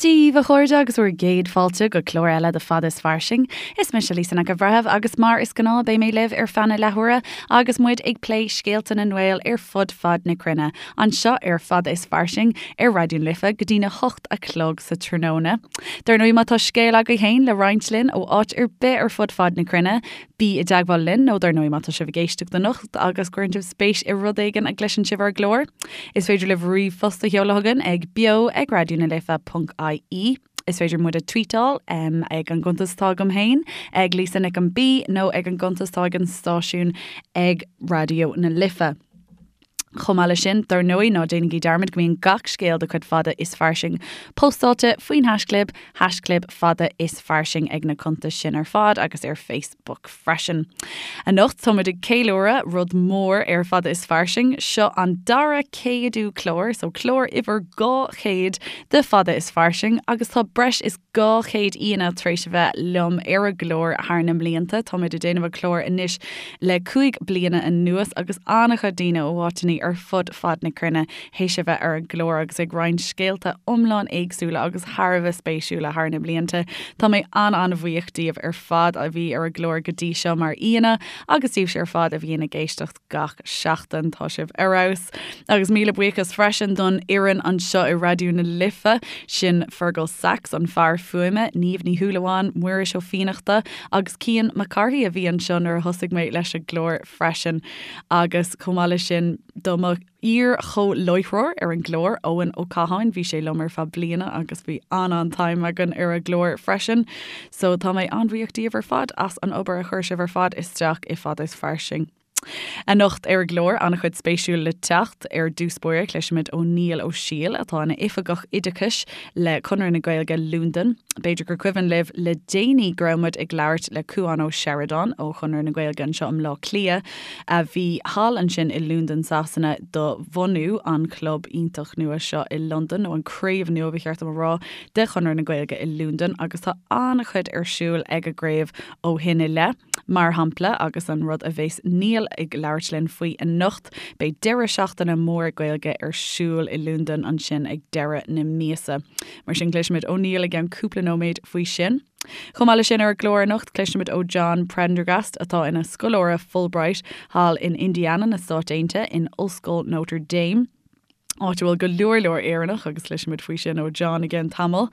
Dia daoibh, a chairde, agus bhur gcéad fáilte go clár eile de Fada is Fairsing. Is mise Lisa Nic an Bhreithimh agus mar is gnáth beidh mé libh ar feadh na leathuaire agus muid ag plé scéalta na nGael ar fud fad na cruinne, anseo ar Fada is Fairsing ar Raidió na Life go dtína hocht a chlog sa tráthnóna. Dar ndóigh má tá scéal agaibh féin le roinnt linn ó áit ar bith ar fud fad na cruinne, Bí i dteagmháil linn nó dar ndóigh má tá sibh ag éisteacht anocht agus cuireann sibh spéis i rud éigin a gcloiseann sibh ar an gclár, is féidir libh ríomhphost a sheoladh chugainn ag beo ag raidionalife.ie. Is féidir muid a tweetáil ag an gcuntas atá agam féin ag Lisa Nic an B nó ag an gcuntas atá ag an stáisiún ag Raidió na Life. Chomh maith leis sin, dar ndóigh, ná déanaigí dearmad go mbíonn gach scéal de chuid Fada is Fairsing postáilte faoin haisclib, haischlib Fada is Fairsing ag na cuntais sin ar fad agus ar Facebook freisin. Anocht tá muid ag ceiliúradh rud mór ar Fada is Fairsing, seo an dara céadú clár, so clár uimhir 200 de Fada is Fairsing agus tá breis is 200 aíonna tar éis a bheith liom ar an gclár thar na mblianta. Tá muid ag déanamh an chlár anois le 5 bliana anuas agus an-chuid daoine ó áiteanna ar fud fad na cruinne théis a bheith ar an gclár agus ag roinnt scéalta iomlán éagsúla agus thar a bheith spéisiúla thar na blianta. Tá mé an-an-bhuíoch díobh ar fad a bhí ar an gclár go dtí seo mar aíonna agus díobhse ar fad a bhíonn ag éisteacht gach seachtain. Tá sibh ar fheabhas. Agus míle buíochas freisin don fhoireann anseo i Raidió na Life, sin Fergal Sachs, an fear fuaime, Niamh Ní Shúilleabháin, Muiris Ó Fiannachta agus Cian Mac Cárthaigh a bhí anseo nuair a thosaigh mé leis an gclár freisin. Agus chomh maith leis sin do mo iar-chomhláithreoir ar an gclár, Eoin Ó Catháin, bhí sé liom ar feadh bliana agus bhí an-an-time againn ar an gclár freisin. So tá mé an-bhuíoch díobh ar fad as an obair a chuir sibh ar fad isteach i Fada is Fairsing. Anocht ar an gclár, an-chuid spéisiúil le teacht. Ar dtús báire, cloisfimid ó Niall Ó Siail, atá ina Oifigeach Oideachais le Conradh na Gaeilge Londain. B'fhéidir gur cuimhin libh le déanaí go raibh muid ag labhairt le Cuán Ó Seireadáin ó Chonradh na Gaeilge anseo i mBleá Cliath, a bhí thall ansin i Londain Sasana do bhunú an chlub iontach nua seo i Londain, nó an craobh nua ba cheart dom a rá, de Chonradh na Gaeilge i Londain agus tá an-chuid ar siúl ag an gcraobh ó shin i leith. Mar shampla, agus an rud a bheas Niall ag labhairt linn faoi anocht, beidh deireadh seachtaine mór Gaeilge ar siúl i Londain ansin ag deireadh na míosa. Mar sin cloisfimid ó Niall i gceann cúpla nóiméad faoi sin. Chomh maith leis sin ar an gclár anocht, cloisfimid ó John Prendergast atá ina scoláire Fulbright thall in Indiana na Stáit Aontaithe in Ollscoil Notre Dame. áit a bhfuil go leor leor Éireannach agus cloisfimid faoi sin ó John i gceann tamaill.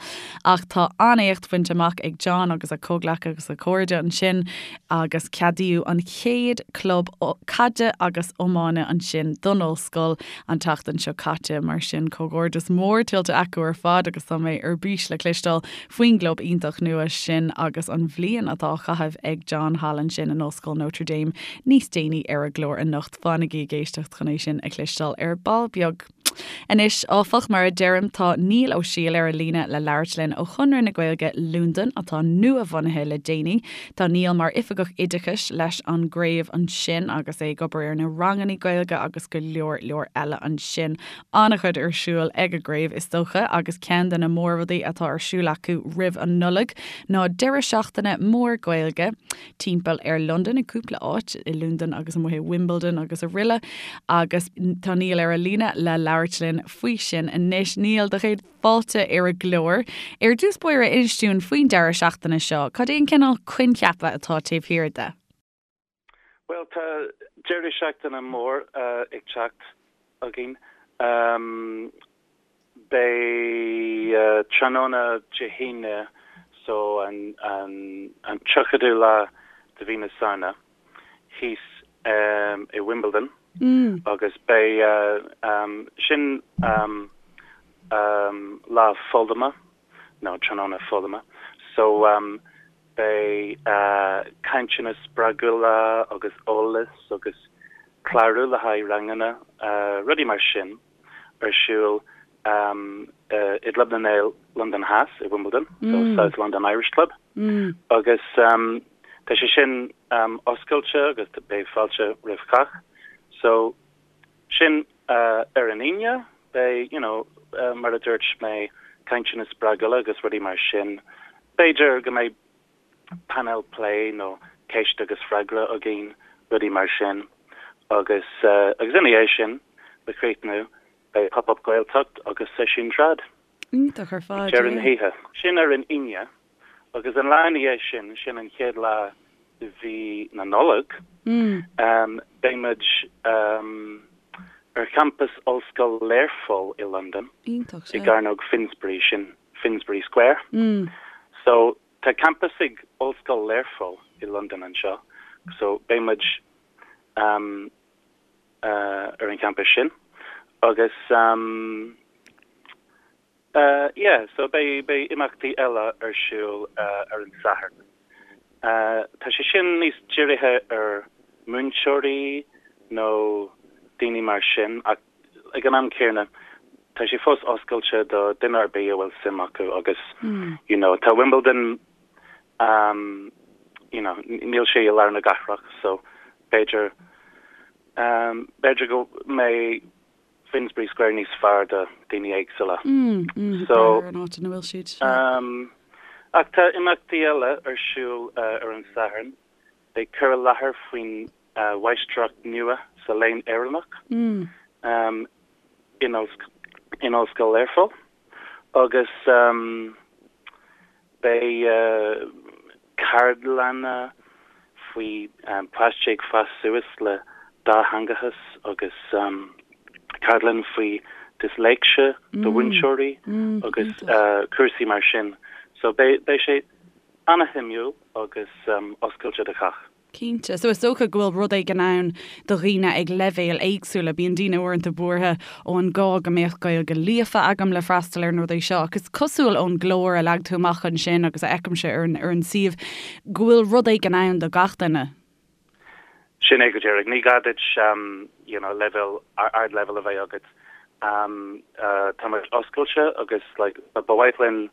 Ach tá an-éacht bainte amach ag John agus a chomhghleacaithe agus a chairde ansin agus ceadaíodh an chéad club caide agus iomána ansin don ollscoil an tseachtain seo caite. Mar sin comhghairdeas mór tuillte acu ar fad agus tá mé ar bís le cloisteáil faoin gclub iontach nua sin agus an bhliain atá á chaitheamh ag John thall ansin in Ollscoil Notre Dame níos déanaí ar an gclár anocht. Fanaigí ag éisteacht chun é sin a chloisteáil ar ball beag. Anois, áfach, mar a deirim, tá Niall Ó Siail ar an líne le labhairt linn ó Chonradh na Gaeilge Londain, atá nua-bhunaithe le déanaí. Tá Niall mar Oifigeach Oideachais leis an gcraobh ansin agus é ag obair ar na ranganna Gaeilge agus go leor leor eile ansin. An-chuid ar siúl ag an gcraobh, is dócha, agus ceann de na mórrudaí atá ar siúl acu roimh an Nollaig ná deireadh seachtaine mór Gaeilge. timpeall ar Londain, i gcúpla áit, i Londain agus amuigh i Wimbledon agus araile agus tá Niall ar an líne le labhairt linn faoi sin anois. Niall, do chéad fáilte ar an gclár. Ar dtús báire, inis dúinn faoin deireadh seachtaine seo, cad é an cineál coincheapa atá taobh thiar de? Bhuel, tá deireadh seachtaine mór ag teacht againn. Beidh tráthnóna Dé hAoine, so an 30ú lá de mhí na Samhna, thíos i Wimbledon agus beidh sin lá foghlama, nó tráthnóna foghlama, so beidh cainteanna spreagúla agus eolas agus clárú le haghaidh ranganna, rudaí mar sin. ar siúl i gClub na nGael Londain Theas i Wimbledon, so South London Irish Club, agus tá sé sin oscailte agus beidh fáilte roimh chách. So sin ar an Aoine, beidh, you know, mar a dúirt mé, cainteanna spreagúla agus rudaí mar sin. B'fhéidir go mbeidh painéal plé nó ceist agus freagra againn, rudaí mar sin. Agus agus ina dhiaidh sin, le críochnú, beidh Pop Up Gaeltacht agus seisiún trad. Iontach ar fad, Ag deireadh na hoíche. Sin ar an Aoine agus an lá ina dhiaidh sin, sin an chéad lá de mhí na Nollag, beidh muid ar champas Ollscoil Learpholl i Londain, i gCearnóg Finsbury, sin Finsbury Square. So tá campas ag Ollscoil Learpholl i Londain anseo, so beidh muid ar an champas sin agus yeah so beidh beidh imeachtaí eile ar siúl ar an Satharn. Tá sé sin níos dírithe ar múinteoirí nó daoine mar sin ach ag an am céanna tá sé fós oscailte do duine ar bith a bhfuil suim acu agus you know tá Wimbledon you know níl sé i lár na cathrach so b'fhéidir b'fhéidir go mbeidh Finsbury Square níos fearr do daoine éagsúla. So an áit ina bhfuil siad. Ach tá imeachtaí eile ar siúl ar an Satharn. Beidh cur i láthair faoin mháistreacht nua sa Léann Éireannach in Ollscoil Learpholl agus beidh ceardlanna faoi páistí ag fás suas le dátheangachas agus ceardlann faoi disléicse do mhúinteoirí agus cúrsaí mar sin. So beidh sé ana-shuimiúil agus oscailte do chách. Cinnte. So is dócha go bhfuil rud éigin ann do dhaoine ag leibhéil éagsúla. Bíonn daoine uaireanta buartha, ó an gá go mbeadh Gaeilge líofa agam le freastal ar na rudaí seo? Ach is cosúil ón gclár a leag tú amach ansin agus a fheicimse ar an ar an suíomh go bhfuil rud éigin ann do gach duine. Sin é go díreach. Ní gá duit you know leibhéal, ardleibhéal a bheith agat. Tá muid oscailte agus like ba mhaith linn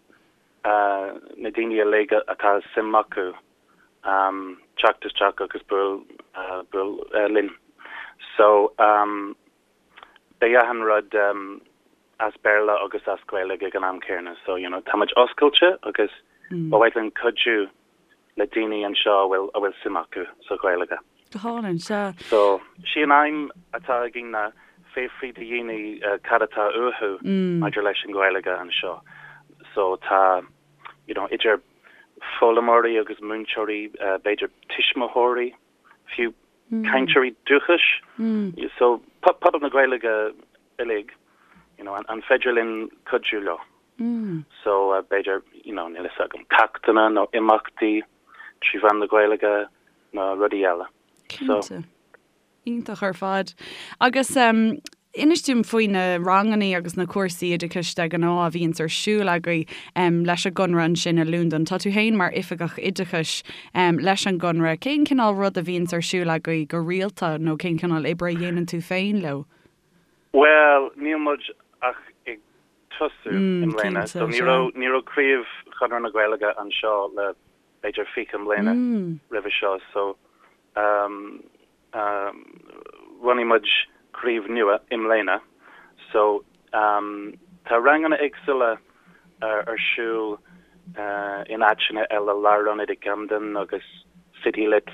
na daoine uilig atá suim acu teacht isteach agus buail buail linn. So beidh achan rud as Béarla agus as Gaeilge ag an am céanna. So you know tá muid oscailte agus ba mhaith linn cuidiú le daoine anseo a bhfuil a bhfuil suim acu sa Ghaeilge. Go hálainn, sea. So sí an aidhm atá againn ná fiafraí de dhaoine cad atá uathu maidir leis an Ghaeilge anseo. So tá you know idir foghlaimeoirí agus múinteoirí, b'fhéidir tuismitheoirí, fiú cainteoirí dúchais. So pobal na Gaeilge uilig, you know, an féidir linn cuidiú leo? So b'fhéidir, you know, níl fhios agam, ceachtanna nó imeachtaí trí mheán na Gaeilge nó rudaí eile. So. Cinnte. Iontach ar fad. Agus inis dom faoi na rangannaí agus na cúrsaí oideachais de ghnáth a bhíonns ar siúl agaibh leis an gConradh ansin i Londain. Tá tú féin mar Oifigeach Oideachais leis an gConradh. Cén cineál rud a bhíonns ar siúl agaibh go rialta nó cén cineál oibre a dhéanann tú féin leo? Bhuel, níl muid ach ag tosú i mbliana. So ní raibh, ní raibh craobh Chonradh na Gaeilge anseo le b'fhéidir 20 mbliana roimhe seo. So Bhunaigh muid craobh nua i mbliana so tá ranganna éagsúla ar siúl in áiteanna eile, Lárionad i gCamden agus City Lit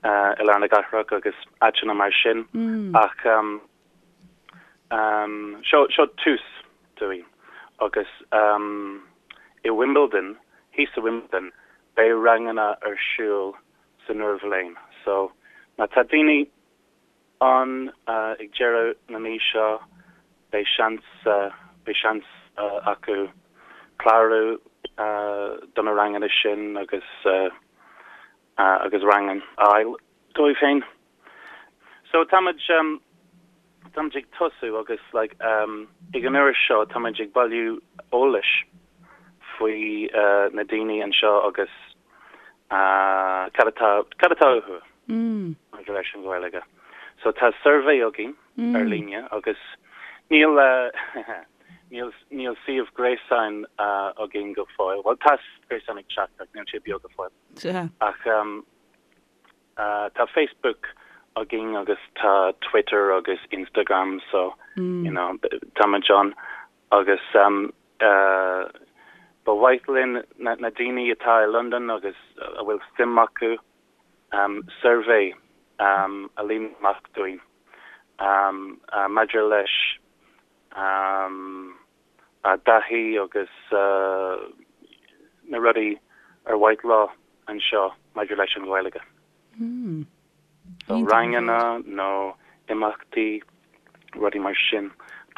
i lár na cathrach agus áiteanna mar sin ach seo seo tús dúinn agus i Wimbledon, thíos i Wimbledon, beidh ranganna ar siúl san iarbhliain. So, má tá daoine ann ag deireadh na mí seo, beidh seans, beidh seans acu clárú do na ranganna sin agus, agus rang a fháil dóibh féin. So táimid, táimid ag tosú agus like ag an uair seo táimid ag bailiú eolais faoi na daoine anseo agus cad atá, cad atá uathu maidir leis an Ghaeilge. So tá suirbhé againn ar líne agus níl níl níl suíomh gréasáin againn go fóill. Bhuel tá suíomh gréasáin ag teacht ach níl sé beo go fóill. Ach Tá Facebook againn agus tá Twitter agus Instagram so you know táimid ann agus ba mhaith linn na daoine atá i Londain agus a bhfuil suim acu suirbhé a líonadh amach dúinn maidir leis. a dtaithí agus na rudaí ar mhaith leo anseo maidir leis an Ghaeilge. So ranganna nó imeachtaí, rudaí mar sin.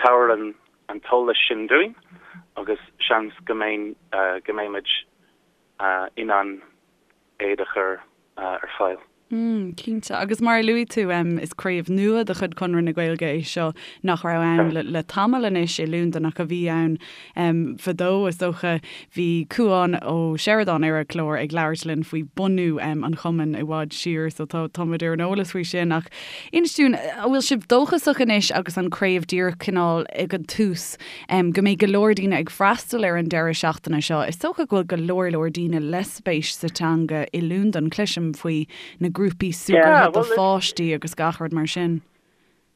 Tabhair an an t-eolas sin dúinn agus seans go mbeinn go mbeimid in ann iad a chur ar fáil. Mm, cinnte. Agus mar a luaigh tú, is craobh nua de chuid Chonradh na Gaeilge é seo nach raibh ann le tamall anois i Londain ach a bhí ann fadó, is dócha. Bhí Cúán Ó Seireadáin ar an chlár ag labhairt linn faoi bunú an chumainn i bhfad siar, so tá tá muid ar an eolas faoi sin. Ach inis dúinn, an bhfuil sibh dóchasach anois agus an craobh díreach cineál ag an tús, go mbeidh go leor daoine ag freastal ar an deireadh seachtaine seo? Is dócha go bhfuil go leor leor daoine le spéis sa teanga i Londain. Cloisim faoi na grúpaí súgartha do pháistí agus gach rud mar sin.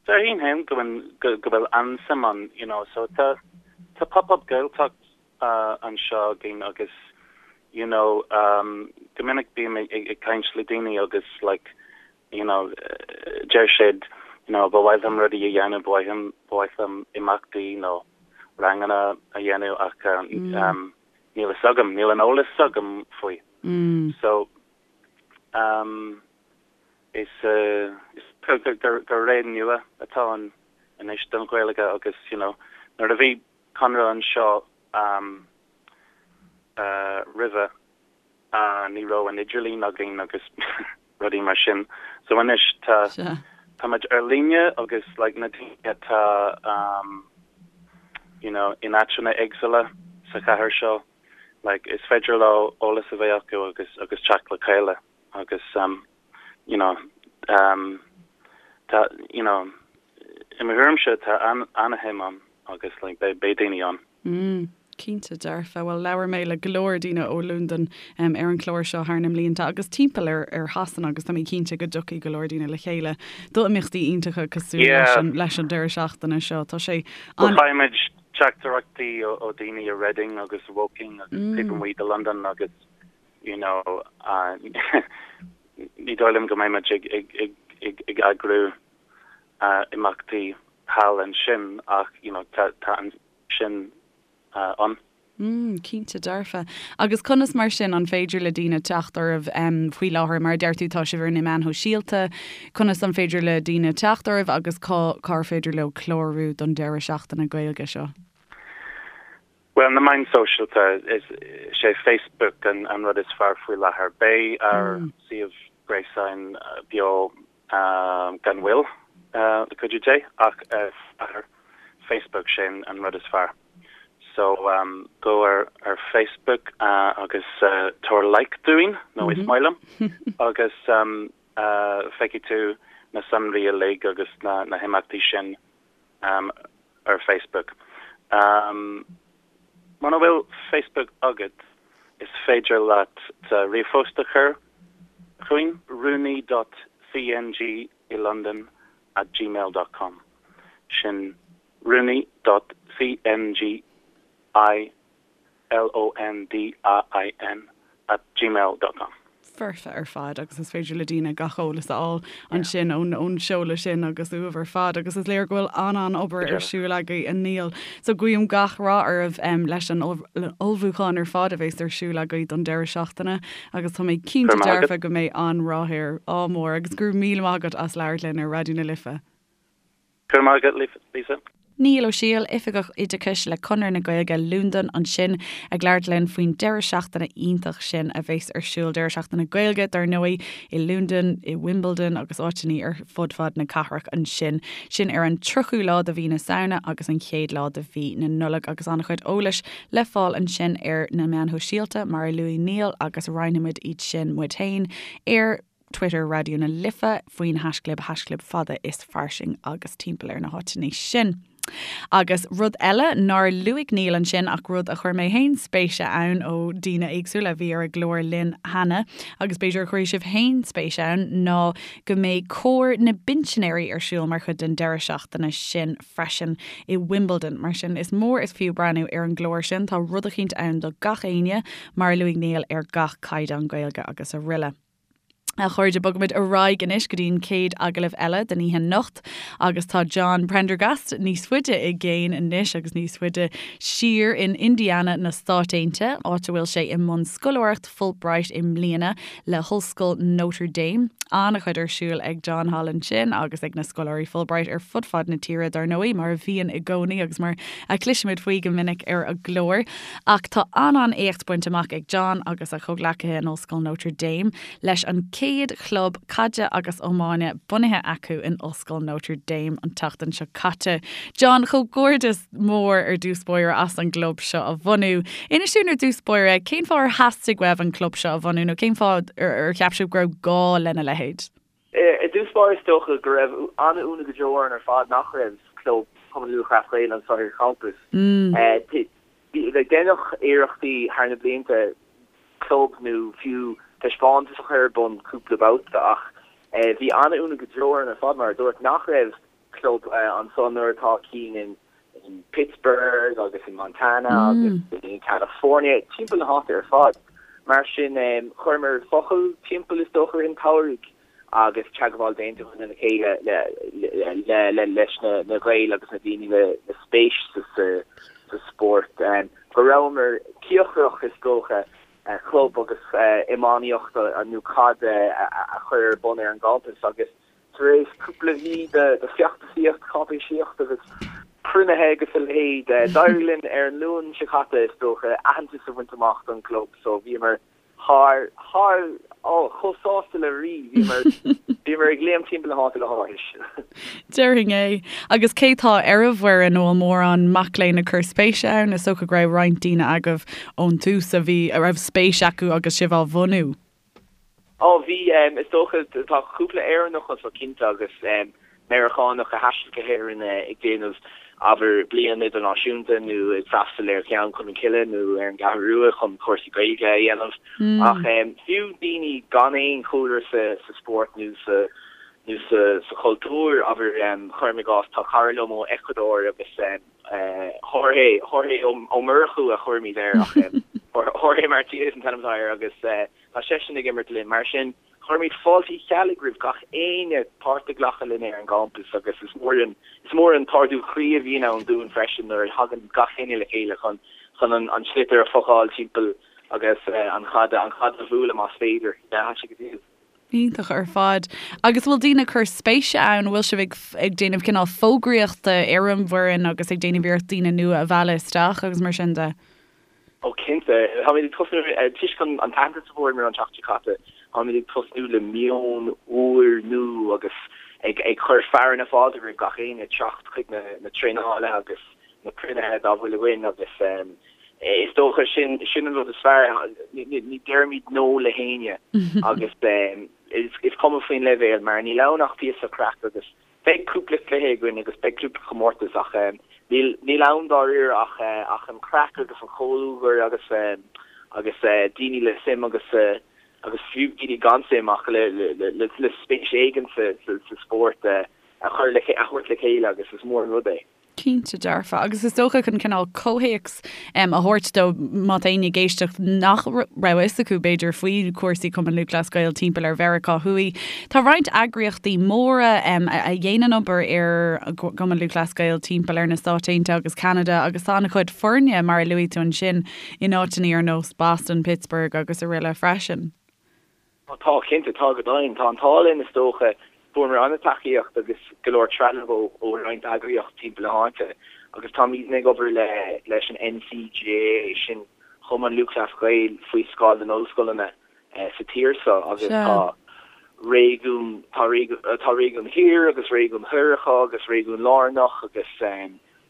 Déarfainn féin go bhfuil go bhfuil an-suim ann, you know, so tá tá Pop-Up Gaeltacht anseo againn agus you know go minic bím ag caint le daoine agus like you know deir siad you know ba mhaith liom rudaí a dhéanamh, ba mhaith liom ba mhaith liom imeachtaí nó ranganna a dhéanamh ach níl fhios agam, níl an eolas agam faoi. So, um, is is gur gur gur ré nua atá ann anois don Ghaeilge agus, you know, nuair a bhí Conradh anseo um, uh, roimhe, uh, ní raibh an idirlíon againn agus rudaí mar sin. So anois tá tá muid ar líne agus like na daoine atá um, you know, in áiteanna éagsúla sa chathair seo, like is féidir leo eolas a bheith acu agus agus teacht le chéile agus um, you know, um, tá you know, i mo thuairimse tá an an-shuim ann agus like beidh beidh daoine ann. Mm, cinnte dearfa. Bhuel, labhair mé le go leor daoine ó Londain ar an chlár seo thar na mblianta agus timpeall ar ar Shasana agus tá mé cinnte go dtiocfaidh go leor daoine le chéile do imeachtaí iontacha cosúil leis an leis an deireadh seachtaine seo. Tá sé an. Faighimid teachtaireachtaí ó ó daoine i Reading agus Woking agus taobh amuigh de Londain agus you know ní dóigh liom go mbeimid ag ag ag ag ag eagrú imeachtaí thall ansin ach you know tá tá an sin ann. Mm, cinnte dearfa. Agus conas mar sin an féidir le daoine teacht oraibh faoi láthair? Mar a deir tú tá sibh ar na meáin shóisialta, conas an féidir le daoine teacht oraibh agus cá cár féidir leo clárú don deireadh seachtaine Gaeilge seo? Bhuel, na meáin shóisialta, is é Facebook an an rud is fearr faoi láthair. Beidh ár suíomh gréasáin beo gan mhoill, le cuidiú Dé, ach ar Facebook, sin an rud is fearr. So, gabh ar ar Facebook agus tabhair like dúinn, nó is maith liom, agus feicfidh tú na sonraí uilig agus na na himeachtaí sin ar Facebook. Muna bhfuil Facebook agat, is féidir leat ríomhphost a chur chugainn, rúnaí dot cng i Londain at gmail dot com. Sin rúnaí dot cng i L-O-N-D-A-I-N at gmail dot com. Foirfe ar fad agus is féidir le daoine gach eolas a fháil ansin ón ón seoladh sin agus uaibh ar fad agus is léir go bhfuil an-an-obair ar siúl agaibh a Niall. So guím gach rath oraibh leis an ullmhúchán ar fad a bheas ar siúl agaibh don deireadh seachtaine agus tá mé cinnte dearfa go mbeidh an-rath air. Ádh mór agus go raibh míle maith agat as labhairt linn ar Raidió na Life. Go raibh maith agat, Lisa. Niall Ó Siail, Oifigeach Oideachais le Conradh na Gaeilge Londain ansin ag labhairt linn faoin deireadh seachtaine iontach sin a bheas ar siúl, deireadh seachtaine Gaeilge dar ndóigh, i Londain, i Wimbledon agus áiteanna ar fud fad na cathrach ansin. Sin ar an 30ú lá de mhí na Samhna agus an chéad lá de mhí na Nollag agus an-chuid eolais le fáil ansin ar na meáin shóisialta mar a luaigh Niall agus roinnfimid iad sin muid féin ar Twitter Raidió na Life faoin haischlib haischlib fada is fairsing agus timpeall ar na háiteanna sin. Agus rud eile nár luaigh Niall ansin ach rud a chuir mé féin spéis ann ó daoine éagsúla a bhí ar an gclár linn cheana agus b'fhéidir a chuirfidh sibh féin spéis ann ná go mbeidh Cór na bPinsinéirí ar siúl mar chuid den deireadh seachtaine sin freisin i Wimbledon. Mar sin is mór is fiú breathnú ar an gclár sin, tá rud eicínt ann do gach éinne mar a luaigh Niall ar gach caighdeán Gaeilge agus araile. A chairde, bogaimid ar aghaidh anois go dtí an chéad agallamh eile den oíche anocht agus tá John Prendergast níos faide i gcéin anois agus níos faide siar in Indiana na Stáit Aontaithe, áit a bhfuil sé i mbun scoláireacht Fulbright i mbliana le hOllscoil Notre Dame. An-chuid ar siúl ag John thall ansin agus ag na scoláirí Fulbright ar fud fad na tíre, dar ndóigh, mar a bhíonn i gcónaí agus mar a chloisimid faoi go minic ar an gclár. Ach tá an-an-éacht bainte amach ag John agus a chomhghleacaithe in Ollscoil Notre Dame leis an chéad chlub caide agus iomána bunaithe acu in Ollscoil Notre Dame an tseachtain seo caite. John, comhghairdeas mór ar dtús báire as an gclub seo a bhunú. Inis dúinn ar dtús báire cén fáth ar theastaigh uaibh an club seo a bhunú nó cén fáth ar cheap sibh go raibh gá lena leithéid? I dtús báire is dócha go raibh an-ionadh go deo orainn ar fad nach raibh club Chumann Lúthchleas Gael anseo ar champas. Deineadh iarrachtaí thar na blianta club nó fiú taispeántas a chur ar bun cúpla babhta ach bhí an-ionadh go deo orainn ar fad, mar a dúirt, nach raibh club anso nuair atá cinn in Pittsburgh agus in Montana agus in California, timpeall na háite ar fad. Mar sin, chuireamar focal timpeall is dócha i rith an tsamhraidh agus teagmháil déanta againn lena chéile le leis na Gaeil agus na daoine le spéis sa spórt. Go rabhamar cíocrach is dócha club agus iománaíocht nó caid a chur ar bun ar an gcampas agus Tar éis cúpla mhí de feachtasaíocht, cáipéisíocht agus cruinnithe agus a leithéid, d'éirigh linn ar an Luan seo caite, is dócha, aitheantas a bhaint amach don gclub so bhíomar thar, thar, oh, chomh sásta le rí, bhíomar, bhíomar ag léim timpeall na háite le háthas. Déarfainn é. Agus cé tá ar an bhfoireann, an bhfuil mórán mac léinn ag cur spéise ann? Is dócha go raibh roinnt daoine agaibh ón tús a bhí, a raibh spéis acu agus sibh á bhunú. Ó, bhí, is dócha, tá cúpla Éireannach anso cinnte agus Meiriceánach a thaistil go hÉirinn ag déanamh, abair, bliain idirnáisiúnta nó ag freastal ar Ghleann Cholm Cille nó ar an gCeathrú Rua chun cúrsaí Gaeilge a dhéanamh. Ach fiú daoine gan aon chúlra sa spórt nó sa nó sa chultúr, abair, cuirim i gcás, tá cara liom ó Ecuador agus Jorge, Jorge Ó Murchú a chuirimid air ach Jorge Martinez an t-ainm atá air agus tá seisean ag imirt linn. Mar sin, cuirimid fáilte Uí Cheallaigh roimh gach éinne páirt a ghlacadh linn ar an gcampas agus is mór an, is mór an t-ardú croí a bhíonn ann dúinn freisin nuair a thagann gach éinne le chéile chun, chun an sliotar a phocáil timpeall agus an chaid, an chaid a bhualadh más féidir. Yeah, tá sé go diail. Iontach ar fad. Agus bhfuil daoine ag cur spéise ann, bhfuil sibh ag ag déanamh cineál fógraíochta ar an bhfoireann agus ag déanamh iarracht daoine nua a mhealladh isteach agus mar sin de? Ó cinnte. Táimid ag tosnú, toisc an t-aitheantas a fuaireamar an tseachtain seo caite, táimid ag tosnú le meon úr nua agus ag ag cur fearadh na fáilte roimh gach éinne teacht chuig na na traenálacha agus na cruinnithe dá bhfuil againn agus is dócha sin sin an rud is fearr, ní deirimid no le héinne agus is cuma faoin leibhéal mar níl ann ach píosa craic agus beidh cúpla cluiche againn agus beidh cúpla comórtas ach níl níl ann dáiríre ach ach an craic agus an comhluadar agus agus daoine le suim agus agus fiú daoine gan suim ach le le le spéis éigin sa sa spórt a chur le a thabhairt le chéile agus is mór an rud é. Cinnte dearfa. Agus is dócha chun cineál comhthéacs a thabhairt dó, má tá éinne ag éisteacht nach raibh a fhios acu, b'fhéidir, faoi chúrsaí Chumann Lúthchleas Gael timpeall ar Mheiriceá Thuaidh, tá roinnt eagraíochtaí móra a dhéanann obair ar Chumann Lúthchleas Gael timpeall ar na Stáit Aontaithe agus Ceanada agus tá an-chuid foirne, mar a luaigh tú ansin, in áiteanna ar nós Boston, Pittsburgh agus araile freisin. Tá, cinnte, tá go deimhin. Tá an t-ádh linn, is dócha. Fuaireamar an-tacaíocht agus go leor trealamh ó roinnt eagraíocht timpeall na háite agus táimidne ag obair le leis an NCGAA, sin Cumann Lúthchleas Gael faoi scáth na n-ollscoileanna sa tír seo agus tá réigiún, tá tá réigiún thiar agus réigiún thoir acu agus réigiún lárnach agus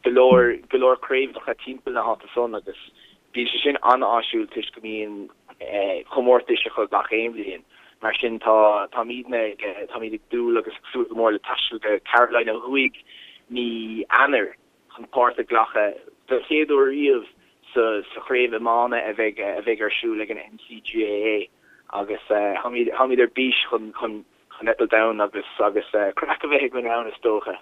go leor, go leor craobhacha timpeall na háite san agus bíonn sé sin an-áisiúil toisc go mbíonn comórtais acu gach aon bhliain. Mar sin tá, táimidne ag, táimid ag dúil agus ag súil go mór le taisteal go Carolina Thuaidh mí Eanáir chun páirt a ghlacadh don chéad uair riamh sa, sa chraobh iomána a bheidh, a bheidh ar siúl ag an NCGAA agus táimid, táimid ar bís chun, chun, chun eitilt ann agus, agus craic a bheith againn ann is dócha.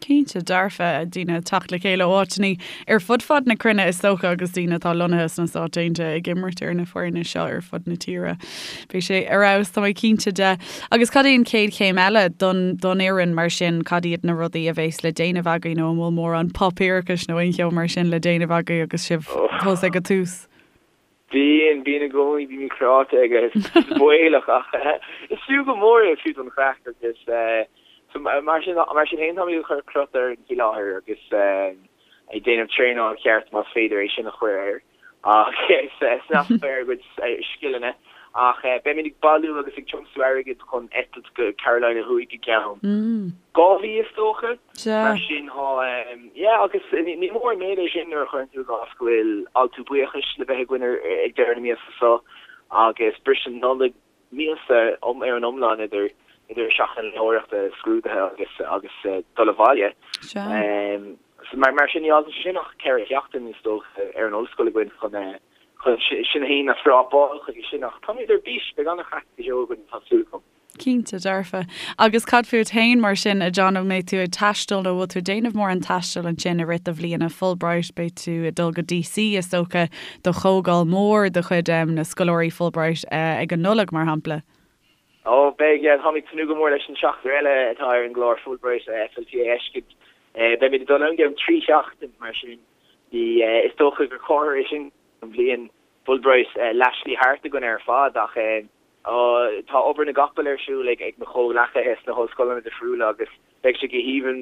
Cinnte dearfa, daoine ag teacht le chéile ó áiteanna ar fud fad na cruinne is dócha agus daoine atá lonnaithe sna Stáit Aontaithe ag imirt ar na foirne seo ar fud na tíre. Beidh sé ar fheabhas, tá mé cinnte de. Agus cad é an chéad chéim eile don don fhoireann mar sin, cad iad na rudaí a bheas le déanamh agaibh nó an bhfuil mórán páipéarachais nó aon cheo mar sin le déanamh agaibh agus sibh fós ag an tús? Bíonn, bíonn i gcónaí, bímid cráite agus is baolach ach is fiú go mór é fiú don chraic agus so mar sin, mar sin féin táimid ag cur crot orainn faoi láthair agus ag déanamh traenáil cheart más féidir é sin a chur air agus snas ar ár gcuid scileanna ach beimid ag bailiú agus ag tiomsú airgid chun eitilt go Carolina Thuaidh i gceann 2 mhí is dócha. Mar sin tá, yeah, agus ní mór an méid é sin nuair a chuireann tú i gcás go bhfuil altú buíochais le bheith againn ag deireadh na míosa seo agus briseadh Nollag míosa ar an iomlán idir idir seachtain léitheoireachta, scrúduithe agus agus dul abhaile. So mar mar sin ní fhágann sé sin ach 4 sheachtain is dócha ar an ollscoil againn chun chun sinn féin a scrápáil chuige sin ach táimid ar bís, beidh an-chraic go deo againn tá súil agam. Cinnte dearfa. Agus cad fút féin mar sin, a John, an mbeidh tú ag taisteal nó bhfuil tú ag déanamh mórán taistil ansin i rith do bhliana Fulbright? Beidh tú ag dul go DC is dócha do chomhdháil mhór de chuid na scoláirí Fulbright ag an Nollaig mar shampla. Ó, beidh, yeah, táim ag tnúth go mór leis an seachtar eile atá ar an gclár Fulbright FLTA a fheiscint. Beimid ag dul ann i gceann 3 sheachtain mar sin. Is dócha gur comhartha é sin an bhliain Fulbright leathshlí thart againn ar fad ach Tá obair na gcapall ar siúl ag mo chomhghleacaithe sna hollscoileanna difriúla agus beidh sé go haoibhinn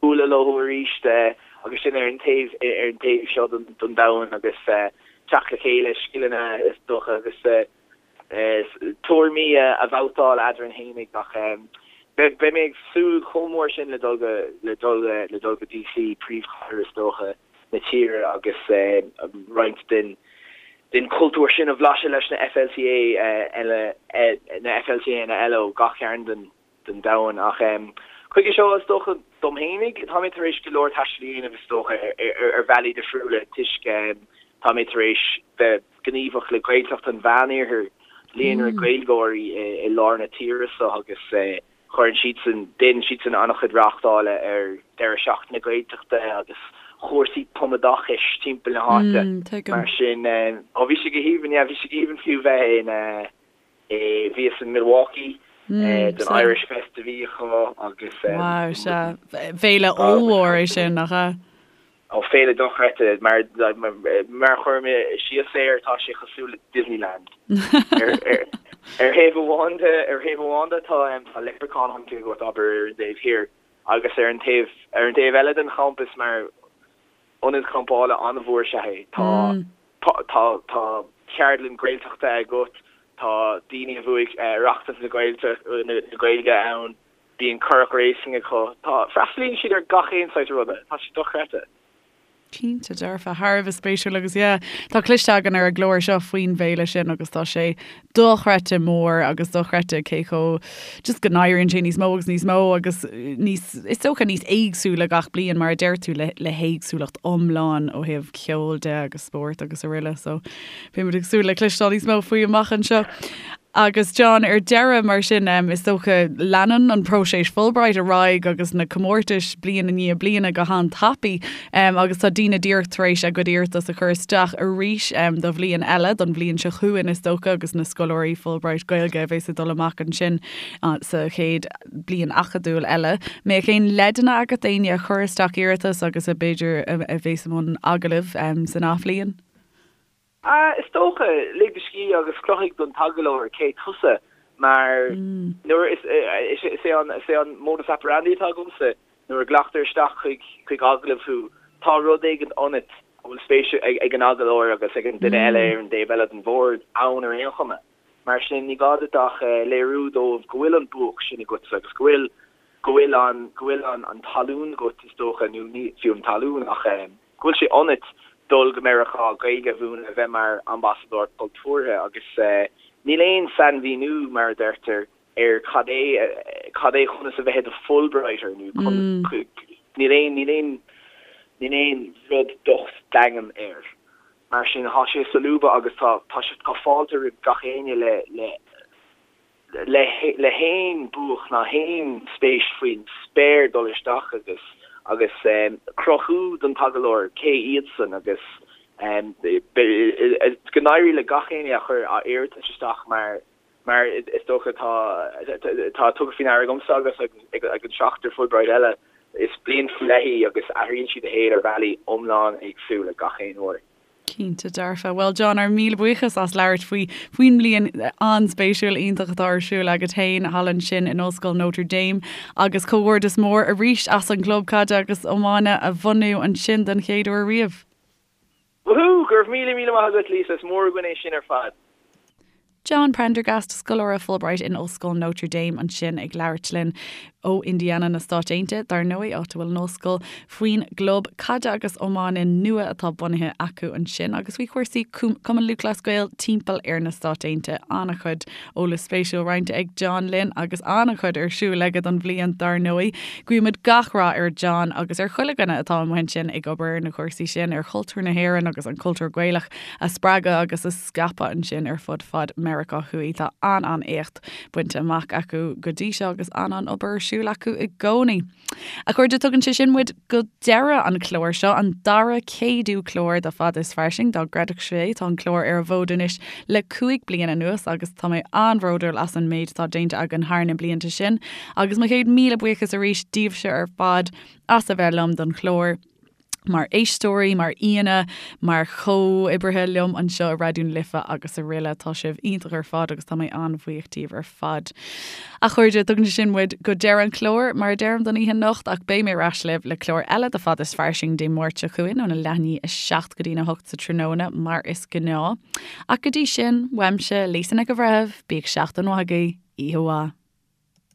bualadh leo arís agus sinn ar an taobh ar an taobh seo den domhan agus teacht le chéile, scileanna is dócha agus tuairimí a bhabhtáil eadrainn fhéinig ach beidh mé ag súil chomh mór sin le dul go le dul le dul go DC, príomhchathair is dócha. na tíre agus roinnt den den chultúr sin a bhlaiseadh leis na FLTA eile, na FLTAnna eile ó gach cearn den den domhan. Ach chuige seo, is dócha, dom fhéinig, tá mé tar éis go leor taistil a dhéanamh is dócha ar bhealaí difriúla toisc tá mé tar éis bheith gníomhach le Gaeltacht an Mheánoirthir, líonra Gaeilgeoirí i lár na tíre seo agus Cuireann siadsan, déanann siadsan an-chuid reáchtála ar deireadh seachtaine Gaeltachta agus chúrsaí tumoideachais timpeall na háite. Mar sin, ó bhí sé go haoibhinn, yeah, bhí sé go haoibhinn fiú bheith in, eh, bhíos in Milwaukee don Irish Fest a bhí acu agus. Wow, sea. Féile ollmhór é sin, nach ea? Ó, féile dochreidte, mar mar a chuir mé síos air, tá sé cosúil le Disneyland. Ar thaobh amháin de, ar thaobh amháin de tá tá leprechaun hunting agat, abair, ar an dtaobh thiar, agus ar an taobh ar an taobh eile den champas mar ionad campála an-mhór is ea é. Tá tá tá ceardlann Gaeltachta agat, tá daoine a bhuaigh Oireachtas na Gaeilge ann, Bíonn currach racing acu. Tá, freastalaíonn siad ar gach aon saghas ruda. Tá sé dochreidte. Cinnte dearfa, thar a bheith spéisiúil agus yeah, tá cloiste againn ar an gclár seo faoin bhféile sin agus tá sé dochreidte mór agus dochreidte cé chomh just go n-éiríonn sé níos mó agus níos mó agus níos, is dócha níos éagsúla gach bliain mar a deir tú le, le héagsúlacht iomlán ó thaobh ceoil de agus spórt agus araile so beimid ag súil le cloisteáil níos mó faoi amach anseo. Agus John, ar deireadh, mar sin, is dócha, leanann an próiseas Fulbright ar aghaidh agus na comórtais bliain i ndiaidh bliana go han-tapaidh agus tá daoine díreach tar éis a gcuid iarratas a chur isteach arís do bhliain eile, don bhliain seo chugainn is dócha, agus na scoláirí Fulbright Gaeilge a bheas ag dul amach ansin sa chéad bliain acadúil eile. Mbeadh aon leideanna agat d'éinne a chuir isteach iarratas agus a b'fhéidir a bheas i mbun agallaimh san athbhliain? Is dócha, lig do scíth agus cruthaigh don t-agallóir cé tusa mar nuair is is é an is é an modus operandi atá agamsa nuair a ghlactar isteach chuig chuig agallamh thú tá rud éigin ionat a bhfuil spéis ag an agallóir agus ag an duine eile ar an dtaobh eile den bhord ann ar aon chuma. Mar sin ní gá duit ach léiriú dóibh go bhfuil an buach sin agatsa agus go bhfuil go bhfuil an go bhfuil an an talún agat is dócha nó ní fiú an talún ach go bhfuil sé ionat dul go Meiriceá, Gaeilge a mhúineadh, a bheith mar ambasadóir cultúrtha agus níl aon sainmhíniú, mar a deirtear, ar cad é cad é conas a bheith i do Fulbrighter nó níl aon níl aon níl aon rud docht daingean air. Mar sin tá sé solúbtha agus tá tá sé tá fáilte roimh gach éinne le le. le le haon buach ná haon spéis faoin spéir dul isteach agus agus cruthú don t-agallóir cé iadsan agus go n-éirí le gach éinne a chuir a iarratas isteach mar mar is dócha tá tá tugtha faoi ndeara agamsa agus ag an seachtar Fulbright eile is bliain faoi leith í agus athraíonn sí do shaol ar bhealaí iomlán éagsúla gach aon uair. Cinnte dearfa. Bhuel John, ár míle buíochas as labhairt faoi faoin mbliain an-spéisiúil iontach atá ar siúl agat féin thall ansin in Ollscoil Notre Dame agus comhghairdeas mór arís as an gclub caide agus iomána a bhunú ansin den chéad uair riamh. Woohoo! Go raibh míle míle maith agat Lisa, is mór againn é sin ar fad. John Prendergast, scoláire Fulbright in Ollscoil Notre Dame ansin ag labhairt linn ó Indiana na Stáit Aontaithe, dar ndóigh, áit a bhfuil an ollscoil, faoin gclub caide agus iomána nua atá bunaithe acu ansin agus faoi chúrsaí Cumann Lúthchleas Gael timpeall ar na Stáit Aontaithe. An-chuid eolas spéisiúil roinnte ag John linn agus an-chuid ar siúl aige don bhliain dar ndóigh. Guímid gach rath ar John agus ar chuile dhuine atá amuigh ansin ag obair ar na cúrsaí sin, ar chultúr na hÉireann agus an cultúr Gaelach a spreagadh agus a scaipeadh ansin ar fud fad Meiriceá Thuaidh. Tá an-an-éacht bainte amach acu go dtí seo agus an-an-obair ar siúl acu i gcónaí. A chairde, tugann sé sin muid go deireadh an chláir seo, an dara céadú clár de Fada is Fairsing, dá gcreidfeadh sibh é. Tá an clár ar an bhfód anois le 5 bliana anuas agus tá mé an-bhródúil as an méid atá déanta againn thar na blianta sin. Agus mo chéad míle buíochas arís daoibhse ar fad as a bheith liom don chlár. mar éisteoirí, mar aíonna, mar chomhoibrithe liom anseo i Raidió na Life agus araile. Tá sibh iontach ar fad agus tá mé an-bhuíoch díobh ar fad. A chairde, tugann sé sin muid go deireadh an chláir, mar a deirim don oíche anocht, ach beidh mé ar ais libh le clár eile de Fada is Fairsing Dé Máirt seo chugainn óna leath i ndiaidh a 7 go dtína 8 sa tráthnóna, mar is gnáth. Ach go dtí sin, uaimse, Lisa Nic an Bhreithimh, bíodh seachtain mhaith agaibh, oíche mhaith.